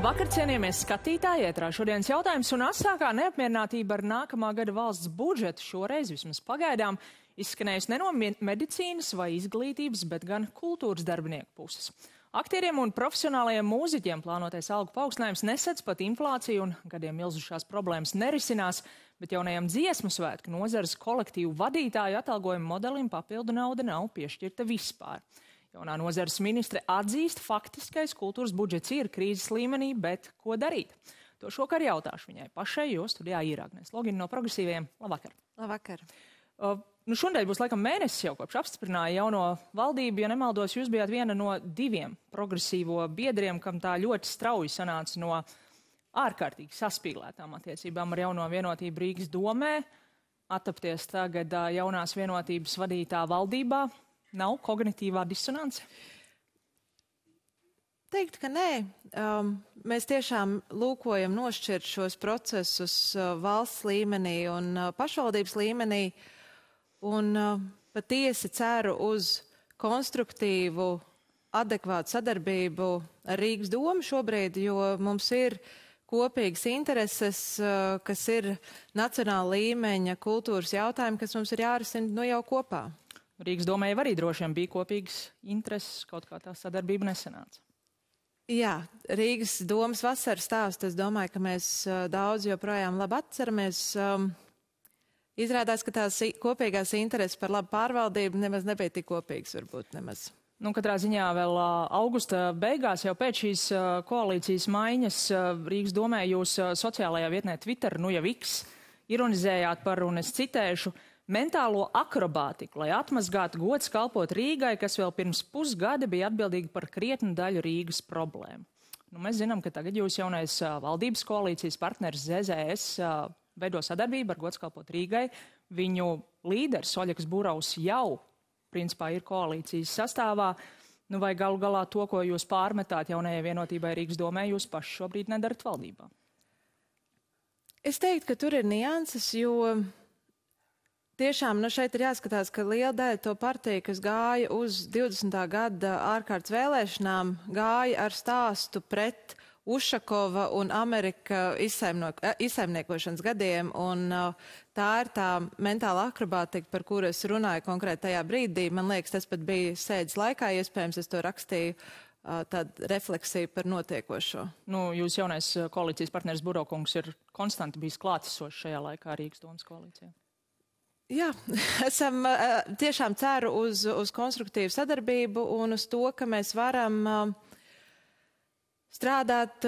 Labvakar, cienījamies skatītāji, ētrā šodienas jautājums un asākā neapmierinātība ar nākamā gada valsts budžetu šoreiz vismaz pagaidām izskanējusi ne no medicīnas vai izglītības, bet gan kultūras darbinieku puses. Aktieriem un profesionālajiem mūziķiem plānotais algu paaugstinājums nesedz pat inflāciju un gadiem ilzušās problēmas nerisinās, bet jaunajam dziesmu svētku nozares kolektīvu vadītāju atalgojuma modelim papildu nauda nav piešķirta vispār. Jaunā nozares ministre atzīst, faktiskais kultūras budžets ir krīzes līmenī, bet ko darīt? To šokar jautāšu viņai pašai, jo studijā ir Agnēs Logina no Progresīviem. Labvakar! Labvakar! Šodien būs laikam mēnesis jau kopš apstiprināja jauno valdību. Ja nemaldos, jūs bijāt viena no 2 progresīvo biedriem, kam tā ļoti strauji sanāca no ārkārtīgi saspīlētām attiecībām ar jauno vienotību Rīgas domē. Attapties tagad jaunās vienotības vadītā valdībā. Nav kognitīvā disonance? Teikt, ka nē. Mēs tiešām lūkojam nošķirt šos procesus valsts līmenī un pašvaldības līmenī. Un patiesi ceru uz konstruktīvu, adekvātu sadarbību ar Rīgas domu šobrīd, jo mums ir kopīgas intereses, kas ir nacionāla līmeņa kultūras jautājumi, kas mums ir jārisina jau kopā. Rīgas domē jau arī droši vien bija kopīgas intereses, kaut kā tā sadarbība nesanāca. Jā, Rīgas domas vasaras stāstu, es domāju, ka mēs daudz joprojām labi atceramies. Izrādās, ka tās kopīgās intereses par labu pārvaldību nemaz nebija tik kopīgas, varbūt nemaz. Katrā ziņā vēl augusta beigās, jau pēc šīs koalīcijas maiņas, Rīgas domē jūs sociālajā vietnē Twitter, nu jau X, ironizējāt par, un es citēšu, mentālo akrobātiku, lai atmazgātu gods kalpot Rīgai, kas vēl pirms pusgada bija atbildīga par krietnu daļu Rīgas problēmu. Mēs zinām, ka tagad jūs jaunais valdības koalīcijas partneris ZZS veido sadarbību ar gods kalpot Rīgai. Viņu līderis Oļegs Buraus jau, principā, ir koalīcijas sastāvā. Vai galu galā to, ko jūs pārmetāt jaunajai vienotībai Rīgas domē, jūs paši šobrīd nedarat valdībā? Es teiktu, ka tur ir nianses, jo tiešām šeit ir jāskatās, ka liela daļa to partiju, kas gāja uz 20. gada ārkārtas vēlēšanām, gāja ar stāstu pret Ušakova un Amerika izsaimniekošanas gadiem, un tā ir tā mentāla akrobātika, par kuru es runāju konkrēti tajā brīdī. Man liekas, tas pat bija sēdes laikā, iespējams, es to rakstīju tādu refleksiju par notiekošo. Jūs jaunais koalīcijas partneris Burokungs ir konstanti bijis klātesošs šajā laikā Rīgas domas koalīcijā. Jā, esam tiešām ceru uz konstruktīvu sadarbību un uz to, ka mēs varam strādāt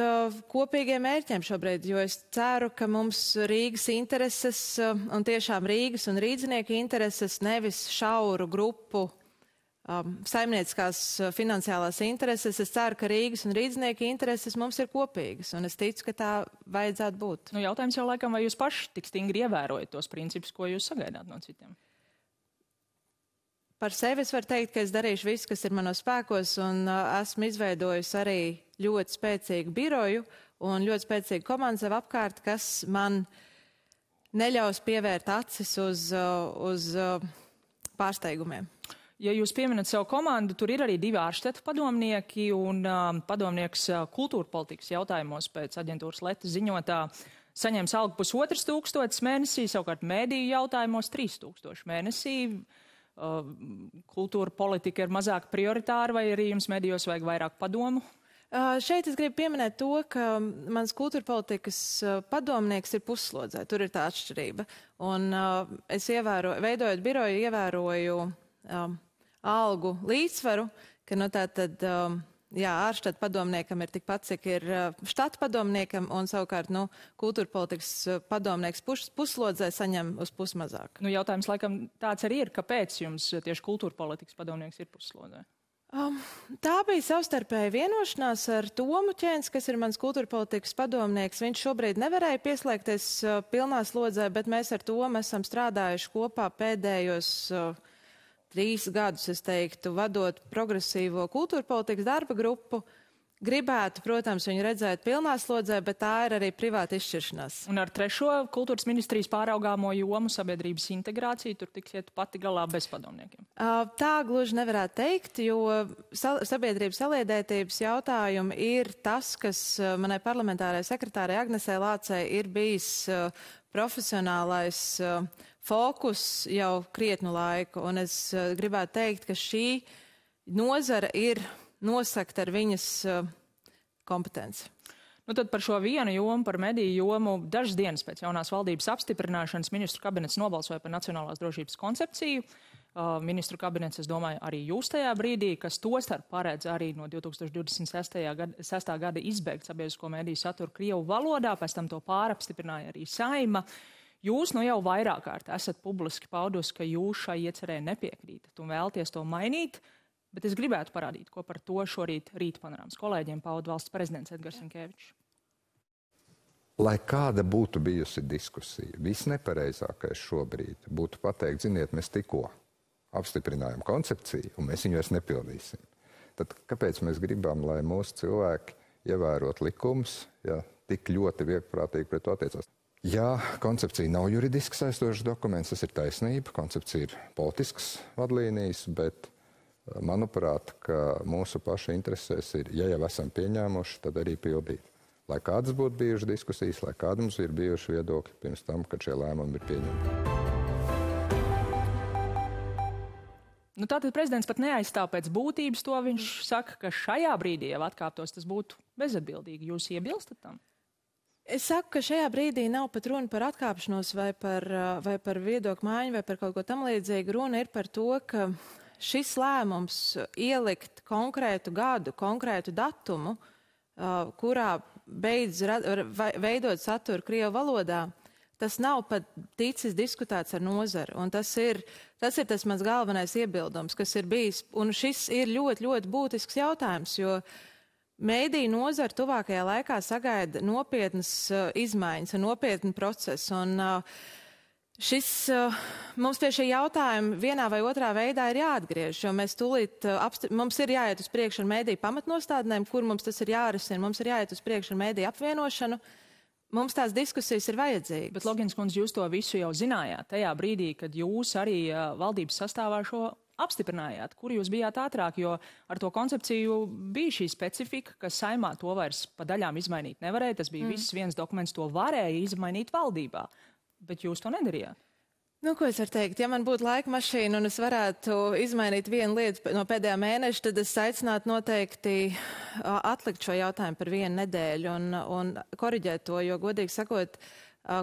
kopīgiem mērķiem šobrīd, jo es ceru, ka mums Rīgas intereses un tiešām Rīgas un rīdzinieku intereses, nevis šauru grupu saimnieciskās finansiālās intereses. Es ceru, ka Rīgas un rīdzinieku intereses mums ir kopīgas, un es ticu, ka tā vajadzētu būt. Jautājums jau laikam, vai jūs paši tik stingri ievērojat tos principus, ko jūs sagaidāt no citiem? Par sevi es varu teikt, ka es darīšu visu, kas ir manos spēkos, un esmu izveidojusi arī ļoti spēcīgu biroju un ļoti spēcīgu komandu sev apkārt, kas man neļaus pievērt acis uz pārsteigumiem. Ja jūs pieminat savu komandu, tur ir arī 2 ārštetu padomnieki un padomnieks kultūra politikas jautājumos pēc aģentūras Leta ziņotā saņems algu 1500 mēnesī, savukārt mēdīju jautājumos 3000 mēnesī. Kultūra politika ir mazāk prioritāra, vai arī jums mēdījos vajag vairāk padomu? Šeit es gribu pieminēt to, ka mans kultūra politikas padomnieks ir pusslodzē. Tur ir tā atšķirība. Un es veidojot biroju, ievēroju algu līdzsvaru, ka tātad, ārštata padomniekam ir tikpat, cik ir štata padomniekam, un savukārt, kultūra politikas padomnieks pusslodzē saņem uz pusi mazāk. Jautājums laikam tāds arī ir, kāpēc jums tieši kultūra politikas padomnieks ir pusslodzē? Tā bija savstarpēja vienošanās ar Tomu Ķēns, kas ir mans kultūra politikas padomnieks. Viņš šobrīd nevarēja pieslēgties pilnā slodzē, bet mēs ar Tomu esam strādājuši kopā pēdējos 3 gadus, es teiktu, vadot progresīvo kultūra politikas darba grupu. gribētu, protams, viņu redzēt pilnā slodzē, bet tā ir arī privāta izšķiršanās. Un ar trešo kultūras ministrijas pāraugāmo jomu sabiedrības integrāciju tur tiksiet pati galā bez padomniekiem? Tā gluži nevarētu teikt, jo sabiedrības saliedētības jautājumi ir tas, kas manai parlamentārai sekretārai Agnesei Lācei ir bijis profesionālais fokus jau krietnu laiku. Un es gribētu teikt, ka šī nozara ir nosakt ar viņas kompetenci. Nu tad par šo vienu jomu, par mediju jomu, dažas dienas pēc jaunās valdības apstiprināšanas ministru kabinets nobalsoja par nacionālās drošības koncepciju. Ministru kabinets, es domāju, arī jūs tajā brīdī, kas tostarp paredz arī no 2026. gada izbeigt sabiedrisko mediju saturu Krievu valodā, pēc tam to pārapstiprināja arī Saeima. Jūs nu jau vairāk kārt esat publiski paudusi, ka jūs šai iecerē nepiekrītat un vēlties to mainīt. Bet es gribētu parādīt, ko par to šorīt Rīta panorāmas kolēģiem pauda valsts prezidents Edgars Rinkevičs. Lai kāda būtu bijusi diskusija, visnepareizākais šobrīd būtu pateikt, ziniet, mēs tikko apstiprinājām koncepciju un mēs viņu vairs nepildīsim. Tad kāpēc mēs gribam, lai mūsu cilvēki ievērot likumus, ja tik ļoti viegprātīgi pret to attiecās? Jā, koncepcija nav juridiski saistošs dokuments, tas ir taisnība, koncepcija ir politisks vadlīnijas, bet manuprāt, ka mūsu paša interesēs ir, ja jau esam pieņēmuši, tad arī pildīt. Lai kādas būtu bijušas diskusijas, lai kādi mums ir bijuši viedokļi pirms tam, kad šie lēmumi ir pieņemti. Nu, tātad prezidents pat neaizstāv pēc būtības to. Viņš saka, ka šajā brīdī jau atkāptos, tas būtu bezatbildīgi. Jūs iebilstat tam? Es saku, ka šajā brīdī nav pat runa par atkāpšanos vai par viedokļu maiņu vai par kaut ko tam līdzīgu. Runa ir par to, ka šis lēmums ielikt konkrētu gadu, konkrētu datumu, kurā beidz veidot saturu Krievu valodā, tas nav pat ticis diskutēts ar nozari. Un tas ir tas mans galvenais iebildums, kas ir bijis. Un šis ir ļoti, ļoti būtisks jautājums, jo mēdīju nozara tuvākajā laikā sagaida nopietnas izmaiņas un nopietnu procesu. Un mums pie šī jautājuma vienā vai otrā veidā ir jāatgriež, jo mēs mums ir jāiet uz priekšu ar mēdīju pamatnostādnēm, kur mums tas ir jārisina, mums ir jāiet uz priekšu ar mēdīju apvienošanu. Mums tās diskusijas ir vajadzīgas. Bet, Logins kundze, jūs to visu jau zinājāt tajā brīdī, kad jūs arī valdības sastāvā šo apstiprinājāt, kur jūs bijāt ātrāk, jo ar to koncepciju bija šī specifika, ka Saeimā to vairs pa daļām izmainīt nevarēja. Tas bija viss viens dokuments, to varēja izmainīt valdībā. Bet jūs to nedarījāt. Nu, ko es varu teikt? Ja man būtu laika mašīna un es varētu izmainīt vienu lietu no pēdējā mēneša, tad es aicinātu noteikti atlikt šo jautājumu par vienu nedēļu un koriģēt to, jo, godīgi sakot,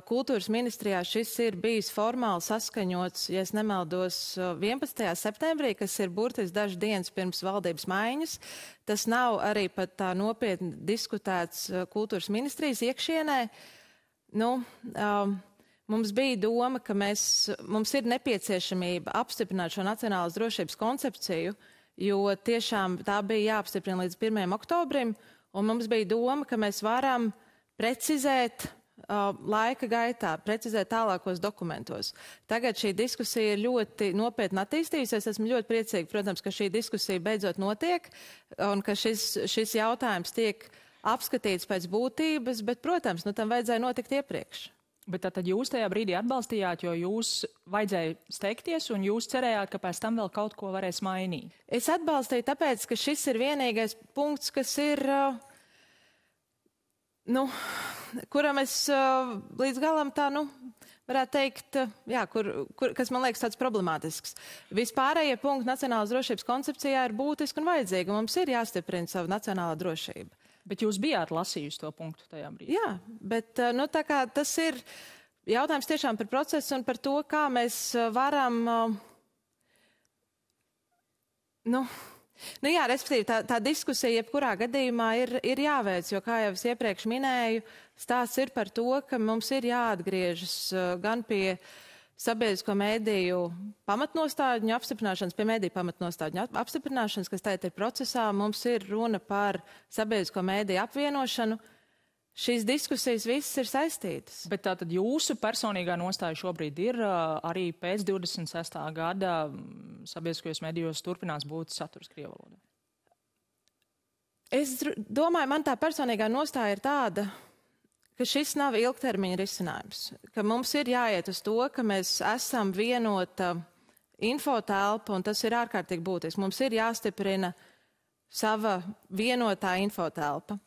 kultūras ministrijā šis ir bijis formāli saskaņots, ja es nemaldos, 11. septembrī, kas ir burtiski dažas dienas pirms valdības maiņas. Tas nav arī pat tā nopietni diskutēts kultūras ministrijas iekšienē. Mums bija doma, ka mums ir nepieciešamība apstiprināt šo nacionālās drošības koncepciju, jo tiešām tā bija jāapstiprina līdz 1. oktobrim, un mums bija doma, ka mēs varam precizēt laika gaitā, precizēt tālākos dokumentos. Tagad šī diskusija ir ļoti nopietni attīstījusies. Esmu ļoti priecīga, protams, ka šī diskusija beidzot notiek, un ka šis jautājums tiek apskatīts pēc būtības, bet, protams, tam vajadzēja notikt iepriekš. Bet tad jūs tajā brīdī atbalstījāt, jo jūs vajadzēja steigties un jūs cerējāt, ka pēc tam vēl kaut ko varēs mainīt. Es atbalstīju tāpēc, ka šis ir vienīgais punkts, kas ir, kuram es līdz galam tā, varētu teikt, jā, kas man liekas tāds problemātisks. Vispārējie punkti nacionālās drošības koncepcijā ir būtiski un vajadzīgi, un mums ir jāstiprina savu nacionālā drošība. Bet jūs bijāt lasījusi to punktu tajā brīdī? Jā, bet tā kā tas ir jautājums tiešām par procesu un par to, kā mēs varam, respektīvi tā diskusija jebkurā gadījumā ir jāveic, jo, kā jau es iepriekš minēju, stāsts ir par to, ka mums ir jāatgriežas gan pie sabiedrisko mediju pamatnostādņu apstiprināšanas, pie mediju pamatnostādņu apstiprināšanas, kas tagad ir procesā. Mums ir runa par sabiedrisko mediju apvienošanu. Šīs diskusijas visas ir saistītas. Bet tātad jūsu personīgā nostāja šobrīd ir arī pēc 26. gada sabiedriskajos medijos turpinās būt saturs Krievu valodā? Es domāju, man tā personīgā nostāja ir tāda, ka šis nav ilgtermiņa risinājums. Ka mums ir jāiet uz to, ka mēs esam vienota infotelpa, un tas ir ārkārtīgi būtiski. Mums ir jāstiprina sava vienotā infotelpa.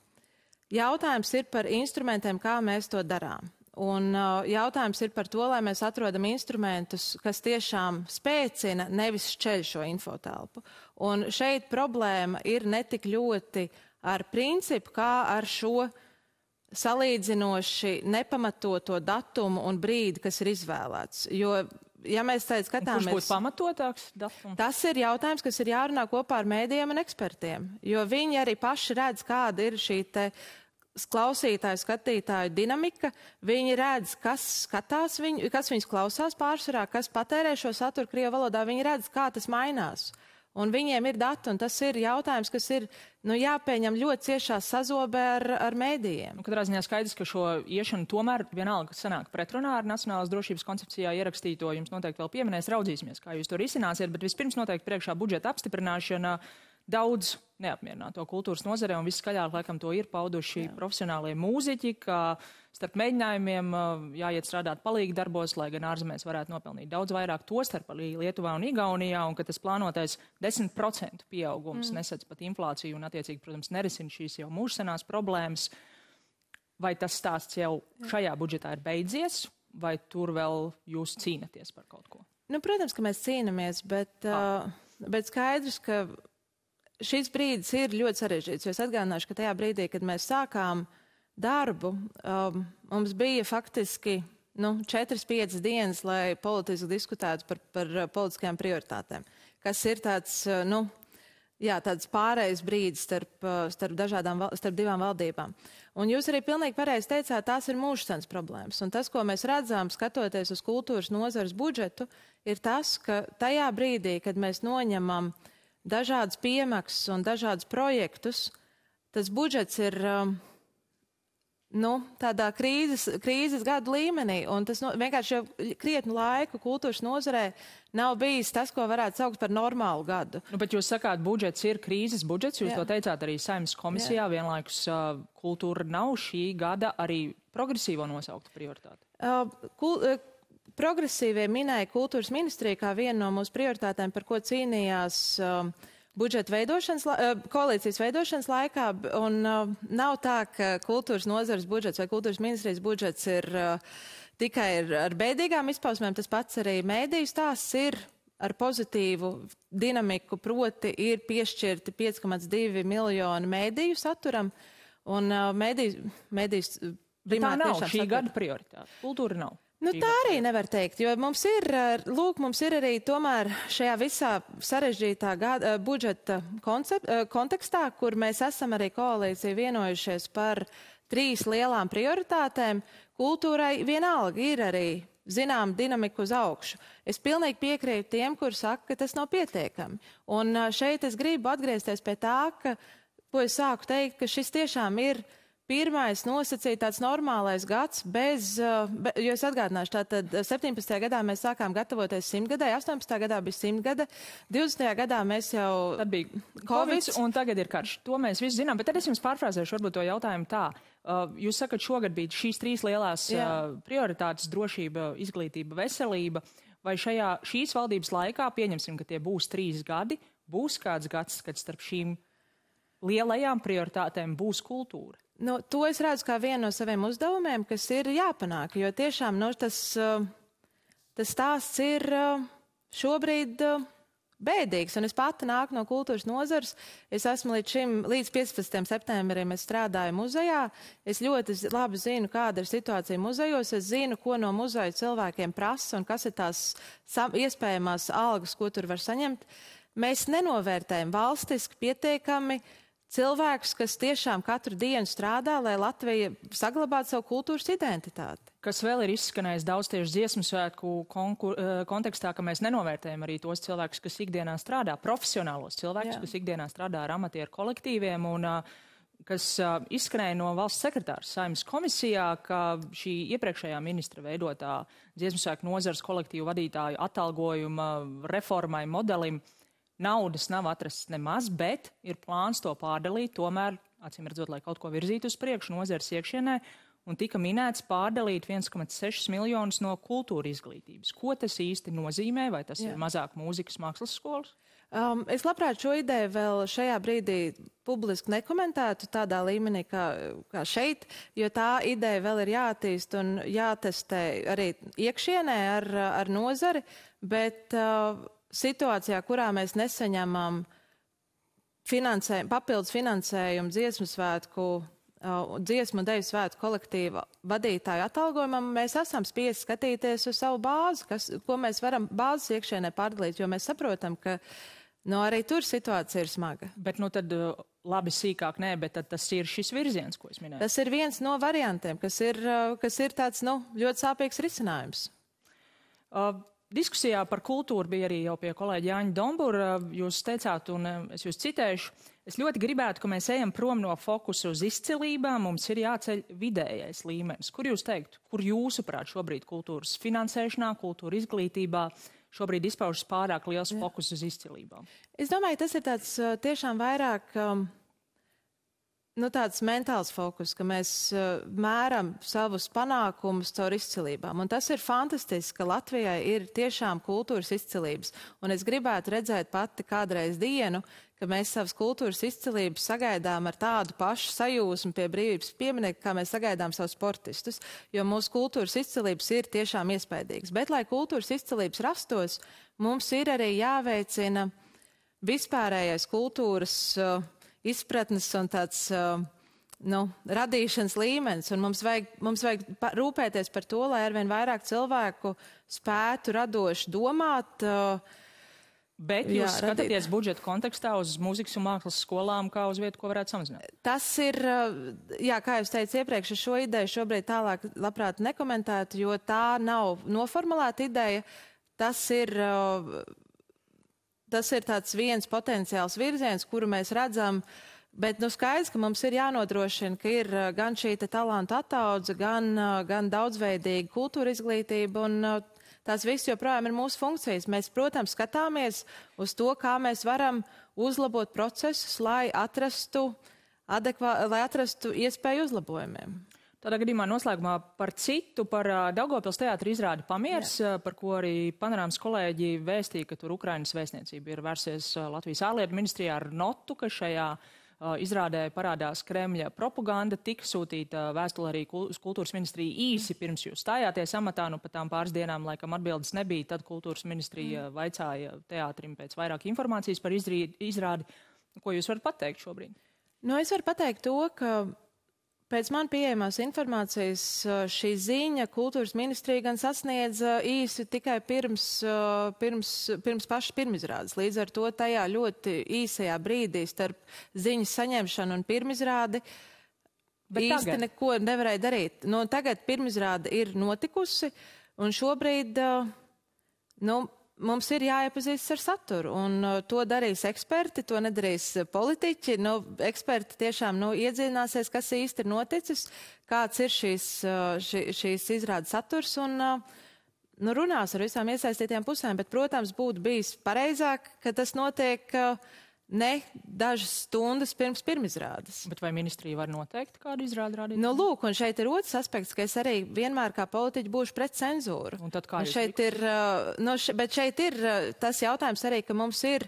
Jautājums ir par instrumentiem, kā mēs to darām. Un jautājums ir par to, lai mēs atrodam instrumentus, kas tiešām spēcina, nevis šķeļ šo infotelpu. Un šeit problēma ir ne tik ļoti ar principu, kā ar šo salīdzinoši nepamatoto datumu un brīdi, kas ir izvēlēts. Jo, ja mēs tagad skatāmies... Kurš būtu pamatotāks datums? Tas ir jautājums, kas ir jārunā kopā ar mēdījiem un ekspertiem. Jo viņi arī paši redz, kāda ir šī te klausītāju, skatītāju dinamika. Viņi redz, kas skatās viņu, kas viņus klausās pārsvarā, kas patērē šo saturu krievu valodā. Viņi redz, kā tas mainās. Un viņiem ir dati, un tas ir jautājums, kas ir jāpieņem ļoti ciešā sazobē ar mēdījiem. Katrā ziņā skaidrs, ka šo iešanu tomēr vienalga sanāk pretrunā ar Nacionālās drošības koncepcijā ierakstīto. Jums noteikti vēl pieminēs, raudzīsimies, kā jūs to risināsiet, bet vispirms noteikti priekšā budžeta apstiprināšana. Daudz neapmierināto kultūras nozarē, un viskaļāk laikam to ir pauduši profesionālie mūziķi, ka starp mēģinājumiem jāiet strādāt palīgi darbos, lai gan ārzemēs varētu nopelnīt daudz vairāk, tostarp arī Lietuvā un Igaunijā, un ka tas plānotais 10% pieaugums nesedz pat inflāciju un attiecīgi, protams, nerisina šīs jau mūžsenās problēmas. Vai tas stāsts jau šajā budžetā ir beidzies, vai tur vēl jūs cīnaties par kaut ko? Protams, ka mēs cīnamies, bet skaidrs, ka šis brīdis ir ļoti sarežģīts, jo es atgādināšu, ka tajā brīdī, kad mēs sākām darbu, mums bija faktiski 4-5 dienas, lai politiski diskutētu par politiskajām prioritātēm, kas ir tāds, tāds pārējais brīdis starp divām valdībām. Un jūs arī pilnīgi pareizi teicāt, tās ir mūžsenas problēmas. Un tas, ko mēs redzam, skatoties uz kultūras nozares budžetu, ir tas, ka tajā brīdī, kad mēs noņemam dažādas piemaksas un dažādas projektus, tas budžets ir tādā krīzes gadu līmenī, un tas vienkārši jau krietnu laiku kultūras nozarē nav bijis tas, ko varētu saukt par normālu gadu. Bet jūs sakāt, budžets ir krīzes budžets, jūs to teicāt arī Saeimas komisijā, vienlaikus kultūra nav šī gada arī progresīvo nosaukta prioritāte. Progresīvie minēja kultūras ministriju kā vienu no mūsu prioritātēm, par ko cīnījās koalīcijas veidošanas laikā, un nav tā, ka kultūras nozares budžets vai kultūras ministrijas budžets ir tikai ar bēdīgām izpausmēm, tas pats arī mēdīju stāsts ir ar pozitīvu dinamiku, proti ir piešķirti 5,2 miljoni mēdīju saturam, un mēdījus primāri tiešām satura. Tā nav šī gada prioritāte. Kultūra nav. Tā arī nevar teikt, jo mums ir arī tomēr šajā visā sarežģītā budžeta kontekstā, kur mēs esam arī koalīcija vienojušies par 3 lielām prioritātēm, kultūrai vienalga ir arī zinām dinamiku uz augšu. Es pilnīgi piekrītu tiem, kuri saka, ka tas nav pietiekami. Un šeit es gribu atgriezties pie tā, ko es sāku teikt, ka šis tiešām ir pirmais nosacīja tāds normālais gads jo es atgādināšu, tātad 17. gadā mēs sākām gatavoties 100 gadai, 18. gadā bija 100 gada, 20. gadā mēs jau... Tad bija Covid un tagad ir karš. To mēs visi zinām, bet tad es jums pārfrāzēšu varbūt to jautājumu tā. Jūs sakat, šogad bija šīs 3 lielās prioritātes - drošība, izglītība, veselība. Vai šīs valdības laikā, pieņemsim, ka tie būs 3 gadi, būs kāds gads, kad starp šīm lielajām prioritātēm būs kultūra? To es redzu kā vienu no saviem uzdevumiem, kas ir jāpanāk, jo tiešām tas stāsts ir šobrīd bēdīgs, un es pati nāku no kultūras nozares. Es esmu līdz 15. septembrim es strādāju muzejā. Es ļoti labi zinu, kāda ir situācija muzejos. Es zinu, ko no muzeja cilvēkiem prasa un kas ir tās iespējamās algas, ko tur var saņemt. Mēs nenovērtējam valstiski pietiekami cilvēkus, kas tiešām katru dienu strādā, lai Latvija saglabātu savu kultūras identitāti. Kas vēl ir izskanējis daudz tieši dziesmu svētku kontekstā, ka mēs nenovērtējam arī tos cilvēkus, kas ikdienā strādā, profesionālos cilvēkus, kas ikdienā strādā ar amatieru kolektīviem, un kas izskanēja no valsts sekretārs Saeimas komisijā, ka šī iepriekšējā ministra veidotā dziesmu svētku nozares kolektīvu vadītāju atalgojuma reformai, modelim naudas nav atrasts nemaz, bet ir plāns to pārdalīt, tomēr, acīm redzot, lai kaut ko virzītu uz priekšu nozares iekšienē, un tika minēts pārdalīt 1,6 miljonus no kultūra izglītības. Ko tas īsti nozīmē? Vai tas ir mazāk mūzikas mākslas skolas? Es labprāt šo ideju vēl šajā brīdī publiski nekomentētu tādā līmenī kā šeit, jo tā ideja vēl ir jāattīst un jātestē arī iekšienē ar nozari, bet situācijā, kurā mēs nesaņemam papildus finansējumu dziesmu un deju svētku kolektīva vadītāju atalgojumam, mēs esam spiesti skatīties uz savu bāzi, ko mēs varam bāzes iekšienē pārdalīt, jo mēs saprotam, ka arī tur situācija ir smaga. Bet tad labi sīkāk nē, bet tad tas ir šis virziens, ko es minēju. Tas ir viens no variantiem, kas ir tāds, ļoti sāpīgs risinājums. Diskusijā par kultūru bija arī jau pie kolēģa Jāņa Dombura. Jūs teicāt, un es jūs citēšu, es ļoti gribētu, ka mēs ejam prom no fokusa uz izcilībām, mums ir jāceļ vidējais līmenis. Kur jūs teiktu, kur jūsuprāt šobrīd kultūras finansēšanā, kultūra izglītībā šobrīd izpaužas pārāk liels fokus uz izcilībām? Es domāju, tas ir tāds tiešām vairāk tāds mentāls fokus, ka mēs mēram savus panākumus caur izcilībām. Un tas ir fantastiski, ka Latvijai ir tiešām kultūras izcilības. Un es gribētu redzēt pati kādreiz dienu, ka mēs savas kultūras izcilības sagaidām ar tādu pašu sajūsmu pie brīvības pieminieku, kā mēs sagaidām savus sportistus, jo mūsu kultūras izcilības ir tiešām iespaidīgas. Bet, lai kultūras izcilības rastos, mums ir arī jāveicina vispārējais kultūras izpratnes un tāds radīšanas līmenis. Un mums vajag rūpēties par to, lai arvien vairāk cilvēku spētu radoši domāt. Bet jūs skatāties budžeta kontekstā uz mūzikas un mākslas skolām kā uz vietu, ko varētu samazināt? Tas ir, kā jūs teicu iepriekš, šo ideju šobrīd tālāk labprāt nekomentētu, jo tā nav noformulēta ideja. Tas ir tāds viens potenciāls virziens, kuru mēs redzam, bet skaidrs, ka mums ir jānodrošina, ka ir gan šī talantu ataudze, gan daudzveidīga kultūra izglītība, un tās viss joprojām ir mūsu funkcijas. Mēs, protams, skatāmies uz to, kā mēs varam uzlabot procesus, lai atrastu iespēju uzlabojumiem. Tādā gadījumā noslēgumā par Daugavpils teātra izrādi Pamieris, par ko arī Panorāmas kolēģi vēstīja, ka tur Ukrainas vēstniecība ir vērsies Latvijas ārlietu ministrijā ar notu, ka šajā izrādē parādās Kremļa propaganda. Tika sūtīta vēstule arī uz kultūras ministriju īsi pirms jūs stājāties amatā, pat tām pāris dienām laikam atbildes nebija. Tad kultūras ministrija vaicāja teātrim pēc vairāk informācijas par izrādi. Ko jūs varat pateikt šobrīd? Es varu pateikt to, ka pēc man pieejamās informācijas šī ziņa kultūras ministrija gan sasniedza īsi tikai pirms pašas pirmizrādes. Līdz ar to tajā ļoti īsajā brīdī starp ziņas saņemšanu un pirmizrādi īsti neko nevarēja darīt. Tagad pirmizrāde ir notikusi un šobrīd mums ir jāiepazīstas ar saturu, un to darīs eksperti, to nedarīs politiķi. Eksperti tiešām iedziļināsies, kas īsti ir noticis, kāds ir šīs izrādes saturs, un runās ar visām iesaistītajām pusēm. Bet, protams, būtu bijis pareizāk, ka tas notiek ne dažas stundas pirms pirmizrādes. Bet vai ministrija var noteikt, kādu izrādi rādīt? Lūk, un šeit ir otrs aspekts, ka es arī vienmēr kā politiķi būšu pret cenzūru. Un tad kā jūs šeit ir, bet šeit ir tas jautājums arī, ka mums ir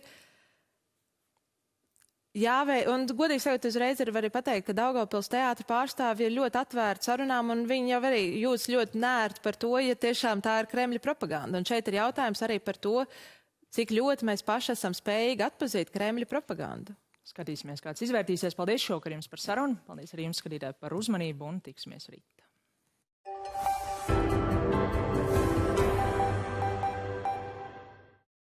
un godīgi sakot, uzreiz arī pateikt, ka Daugavpils teātra pārstāvji ir ļoti atvērti sarunām, un viņi jau arī jūtas ļoti nērti par to, ja tiešām tā ir Kremļa propaganda. Un šeit ir jautājums arī par to, cik ļoti mēs paši esam spējīgi atpazīt Kremļa propagandu. Skatīsimies, kāds izvērtīsies. Paldies šovakar jums par sarunu. Paldies arī jums, skatītāji, par uzmanību, un tiksimies rīt.